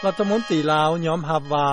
ລັດຖະມົນຕີລາວຍອມຮັບວ່າ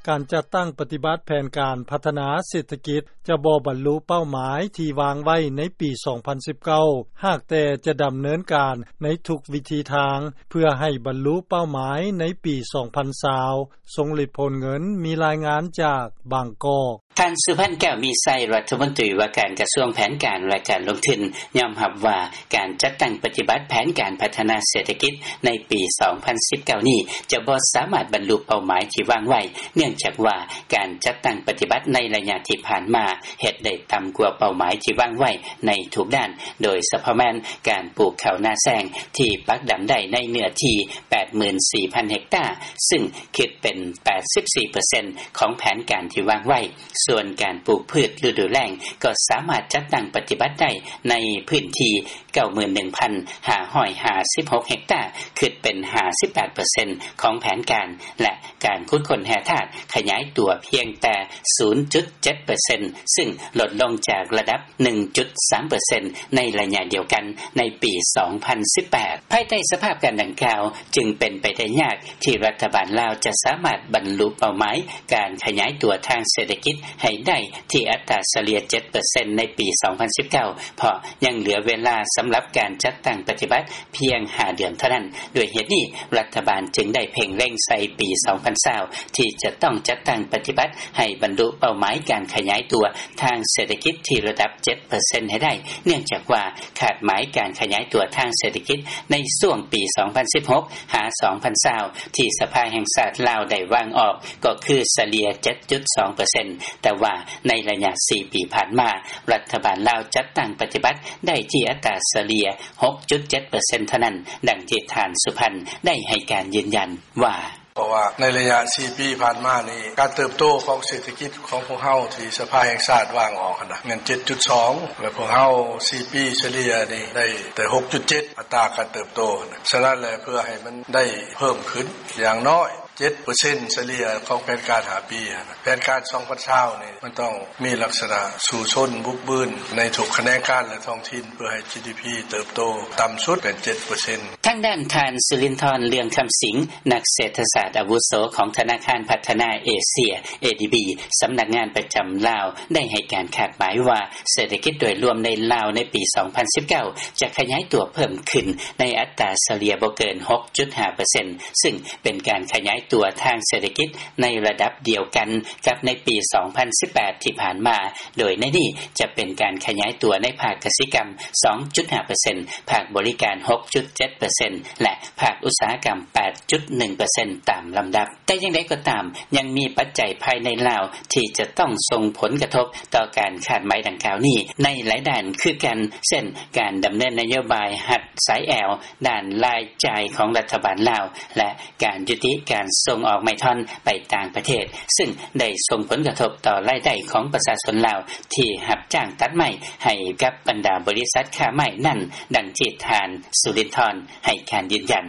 ການຈັດຕັ້ງປະຕິບັດແຜນການພັດທະນາເສດຖະກິດ ຈະບໍ່ບັນລຸເປົ້າໝາຍທີ່ວາງໄວ້ໃນປີສອງພັນສິບເກົ້າ ຫາກແຕ່ຈະດຳເນີນການໃນທຸກວິທີທາງ ເພື່ອໃຫ້ບັນລຸເປົ້າໝາຍໃນປີສອງພັນຊາວ. ຊົງລິດ ໂພນເງິນ ມີລາຍງານຈາກບາງກອກ. ທ່ານ ສຸພັນ ແກ້ວມີໄຊ ລັດຖະມົນຕີວ່າການກະຊວງແຜນການ ແລະ ການລົງທຶນ ຍອມຮັບວ່າ ການຈັດຕັ້ງປະຕິບັດແຜນການພັດທະນາເສດຖະກິດໃນປີສອງພັນສິບເກົ້ານີ້ ຈະບໍ່ສາມາດບັນລຸເປົ້າໝາຍທີ່ວາງໄວ້ ເນື່ອງຈາກວ່າ ການຈັດຕັ້ງປະຕິບັດໃນໄລຍະທີ່ຜ່ານມາ ເຮັດໄດ້ຕ່ຳກວ່າເປົ້າໝາຍທີ່ວາງໄວ້ໃນທຸກດ້ານ ໂດຍສະເພາະແມ່ນການປູກເຂົ້ານາແຊງທີ່ປັກດຳໄດ້ໃນເນື້ອທີ່ແປດໝື່ນສີ່ພັນເຮັກຕາ ຊຶ່ງຄິດເປັນແປດສິບສີ່ເປີເຊັນຂອງແຜນການທີ່ວາງໄວ້. ສ່ວນການປູກພືດລະດູແລ້ງກໍສາມາດຈັດຕັ້ງປະຕິບັດໄດ້ໃນພື້ນທີ່ເກົ້າໝື່ນໜຶ່ງພັນຫ້າຮ້ອຍຫ້າສິບຫົກເຮັກຕາ ຄິດເປັນຫ້າສິບແປດເປີເຊັນຂອງແຜນການ ແລະ ການຂຸດຄົ້ນແຮ່ທາດຂະຫຍາຍຕົວພຽງແຕ່ສູນຈຸດເຈັດເປີເຊັນ ຊຶ່ງລົດລົງຈາກລະດັບໜຶ່ງຈຸດສາມເປີເຊັນໃນໄລຍະດຽວກັນໃນປີສອງພັນສິບແປດ. ພາຍໃຕ້ສະພາບການດັ່ງກ່າວ ຈຶ່ງເປັນໄປໄດ້ຍາກທີ່ລັດຖະບານລາວຈະສາມາດບັນລຸເປົ້າໝາຍການຂະຫຍາຍຕົວທາງເສດຖະກິດໃຫ້ໄດ້ທີ່ອັດຕາສະເລ່ຍເຈັດເປີເຊັນໃນປີສອງພັນສິບເກົ້າ ເພາະຍັງເຫຼືອເວລາສຳລັບການຈັດຕັ້ງປະຕິບັດພຽງຫ້າເດືອນເທົ່ານັ້ນ. ດ້ວຍເຫດນີ້ ລັດຖະບານຈຶ່ງໄດ້ເພັ່ງເລັງໃສ່ປີສອງພັນຊາວ ທີ່ຈະຕ້ອງຈັດຕັ້ງປະຕິບັດໃຫ້ບັນລຸເປົ້າໝາຍການຂະຫຍາຍຕົວທາງເສດຖະກິດທີ່ລະດັບເຈັດເປີເຊັນໃຫ້ໄດ້ ເນື່ອງຈາກວ່າຄາດໝາຍການຂະຫຍາຍຕົວທາງເສດຖະກິດໃນຊ່ວງປີສອງພັນສິບຫົກຫາສອງພັນຊາວ ທີ່ສະພາແຫ່ງຊາດລາວໄດ້ວາງອອກ ກໍຄືສະເລ່ຍເຈັດຈຸດສອງເປີເຊັນ ແຕ່ວ່າໃນໄລຍະສີ່ປີຜ່ານມາ ລັດຖະບານລາວຈັດຕັ້ງປະຕິບັດໄດ້ທີ່ອັດຕາສະເລ່ຍຫົກຈຸດເຈັດເປີເຊັນເທົ່ານັ້ນ, ດັ່ງທີ່ທ່ານ ສຸພັນ ໄດ້ໃຫ້ການຢືນຢັນວ່າ: ເພາະວ່າໃນໄລຍະສີ່ປີຜ່ານມານີ້ ການເຕີບໂຕຂອງເສດຖະກິດຂອງພວກເຮົາທີ່ສະພາແຫ່ງຊາດວາງອອກຫັ້ນນະ ແມ່ນເຈັດຈຸດສອງ ແລະ ພວກເຮົາສີ່ປີສະເລ່ຍນີ້ໄດ້ແຕ່ຫົກຈຸດເຈັດ ອັດຕາການເຕີບໂຕຫັ້ນນະ. ສະນັ້ນແຫຼະ ເພື່ອໃຫ້ມັນໄດ້ເພີ່ມຂຶ້ນຢ່າງນ້ອຍເຈັດເປີເຊັນສະເລ່ຍຂອງແຜນການຫ້າປີຫັ້ນນະ ແຜນການສອງພັນຊາວນີ້ ມັນຕ້ອງມີລັກສະນະສູ້ຊົນບຸກບືນໃນທຸກຂະແໜງການ ແລະ ທ້ອງຖິ່ນ ເພື່ອໃຫ້ ຈີດີພີ ເຕີບໂຕຕ່ຳສຸດເປັນເຈັດເປີເຊັນ. ທາງດ້ານທ່ານ ສຸລິນທອນ ເລື່ອງຄຳສິງ ນັກເສດຖະສາດອາວຸໂສຂອງທະນາຄານພັດທະນາເອເຊຍ ເອດີບີ ສຳນັກງານປະຈຳລາວ ໄດ້ໃຫ້ການຄາດໝາຍວ່າ ເສດຖະກິດໂດຍລວມໃນລາວໃນປີສອງພັນສິບເກົ້າ ຈະຂະຫຍາຍຕົວເພີ່ມຂຶ້ນໃນອັດຕາສະເລ່ຍບໍ່ເກີນຫົກຈຸດຫ້າເປີເຊັນ ຊຶ່ງເປັນການຂະຫຍາຍຕົວທາງເສດຖະກິດໃນລະດັບດຽວກັນກັບໃນປີສອງພັນສິບແປດທີ່ຜ່ານມາ, ໂດຍໃນນີ້ຈະເປັນການຂະຫຍາຍຕົວໃນພາກກະສິກຳສອງຈຸດຫ້າເປີເຊັນ, ພາກບໍລິການຫົກຈຸດເຈັດເປີເຊັນ ແລະ ພາກອຸດສາຫະກຳແປດຈຸດໜຶ່ງເປີເຊັນ ຕາມລຳດັບ. ແຕ່ຢ່າງໃດກໍຕາມ, ຍັງມີປັດໄຈພາຍໃນລາວທີ່ຈະຕ້ອງສົ່ງຜົນກະທົບຕໍ່ການຄາດໝາຍດັ່ງກ່າວນີ້ໃນຫຼາຍດ້ານຄືກັນ, ເຊັ່ນ ການດຳເນີນນະໂຍບາຍຮັດສາຍແອວດ້ານລາຍຈ່າຍຂອງລັດຖະບານລາວ ແລະ ການຍຸຕິການສົ່ງອອກໄມ້ທ່ອນໄປຕ່າງປະເທດ, ຊຶ່ງໄດ້ສົ່ງຜົນກະທົບຕໍ່ລາຍໄດ້ຂອງປະຊາຊົນລາວທີ່ຮັບຈ້າງຕັດໄມ້ໃຫ້ກັບບັນດາບໍລິສັດຄ້າໄມ້ນັ້ນ, ດັ່ງທີ່ທ່ານ ສຸລິນທອນ ໃຫ້ການຢືນຢັນ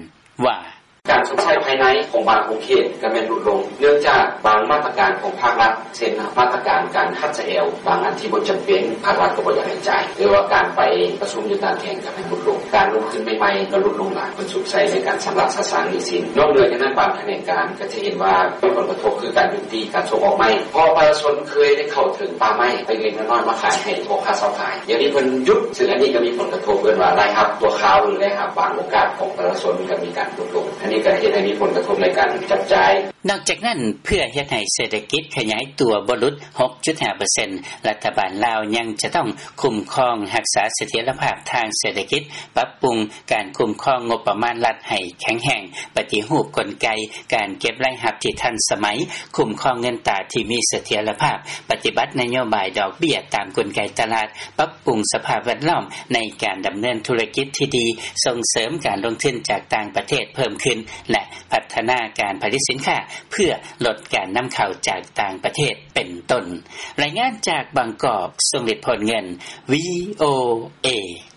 ວ່າ: ການຊົດໃຊ້ພາຍໃນຂອງບາງຂົງເຂດກໍແມ່ນຫຼຸດລົງ ເນື່ອງຈາກບາງມາດຕະການຂອງພາກລັດ ເຊັ່ນ ມາດຕະການການຮັດສາຍແອວບາງອັນທີ່ບໍ່ຈຳເປັນ ພາກລັດກໍບໍ່ຢາກໃຫ້ຈ່າຍ ຫຼືວ່າການໄປປະຊຸມຢູ່ຕ່າງແຂວງກໍແມ່ນຫຼຸດລົງ ການລົງທຶນໃໝ່ໆກໍຫຼຸດລົງຫຼາຍ ເພິ່ນສຸມໃສ່ໃນການຊຳລະສະສາງໜີ້ສິນ. ນອກເໜືອຈາກນັ້ນ ບາງຂະແໜງການກໍຈະເຫັນວ່າມີຜົນກະທົບຄືການຢຸດຕິການສົ່ງອອກໄມ້ ເພາະປະຊາຊົນເຄີຍໄດ້ເຂົ້າເຖິງປ່າໄມ້ເລັກໆນ້ອຍໆມາຂາຍໃຫ້ພໍ່ຄ້າຊາວຂາຍ ດຽວນີ້ເພິ່ນຢຸດ ຊຶ່ງອັນນີ້ກໍມີຜົນກະທົບ ເອີ້ນວ່າລາຍຮັບຊົ່ວຄາວ ຫຼືລາຍຮັບບາງໂອກາດຂອງປະຊາຊົນກໍມີການຫຼຸດລົງ ອັນນີ້ກໍເຮັດໃຫ້ມີຜົນກະທົບໃນການຈັບຈ່າຍ. ນອກຈາກນັ້ນ, ເພື່ອເຮັດໃຫ້ເສດຖະກິດຂະຫຍາຍຕົວບໍ່ຫຼຸດຫົກຈຸດຫ້າເປີເຊັນ ລັດຖະບານລາວຍັງຈະຕ້ອງຄຸ້ມຄອງຮັກສາສະຖຽນລະພາບທາງເສດຖະກິດ, ປັບປຸງການຄຸ້ມຄອງງົບປະມານລັດໃຫ້ແຂງແຮງ, ປະຕິຮູບກົນໄກການເກັບລາຍຮັບທີ່ທັນສະໄໝ, ຄຸ້ມຄອງເງິນຕາທີ່ມີສະຖຽນລະພາບ, ປະຕິບັດນະໂຍບາຍດອກເບ້ຍຕາມກົນໄກຕະຫຼາດ, ປັບປຸງສະພາບແວດລ້ອມໃນການດຳເນີນທຸລະກິດທີ່ດີ, ສົ່ງເສີມການລົງທຶນຈາກຕ່າງປະເທດເພີ່ມຂຶ້ນ ແລະ ພັດທະນາການຜະລິດສິນຄ້າເພື່ອລົດການນຳເຂົ້າຈາກຕ່າງປະເທດ ເປັນຕົ້ນ. ລາຍງານຈາກບາງກອກ, ຊົງລິດ ໂພນເງິນ, ວີໂອເອ.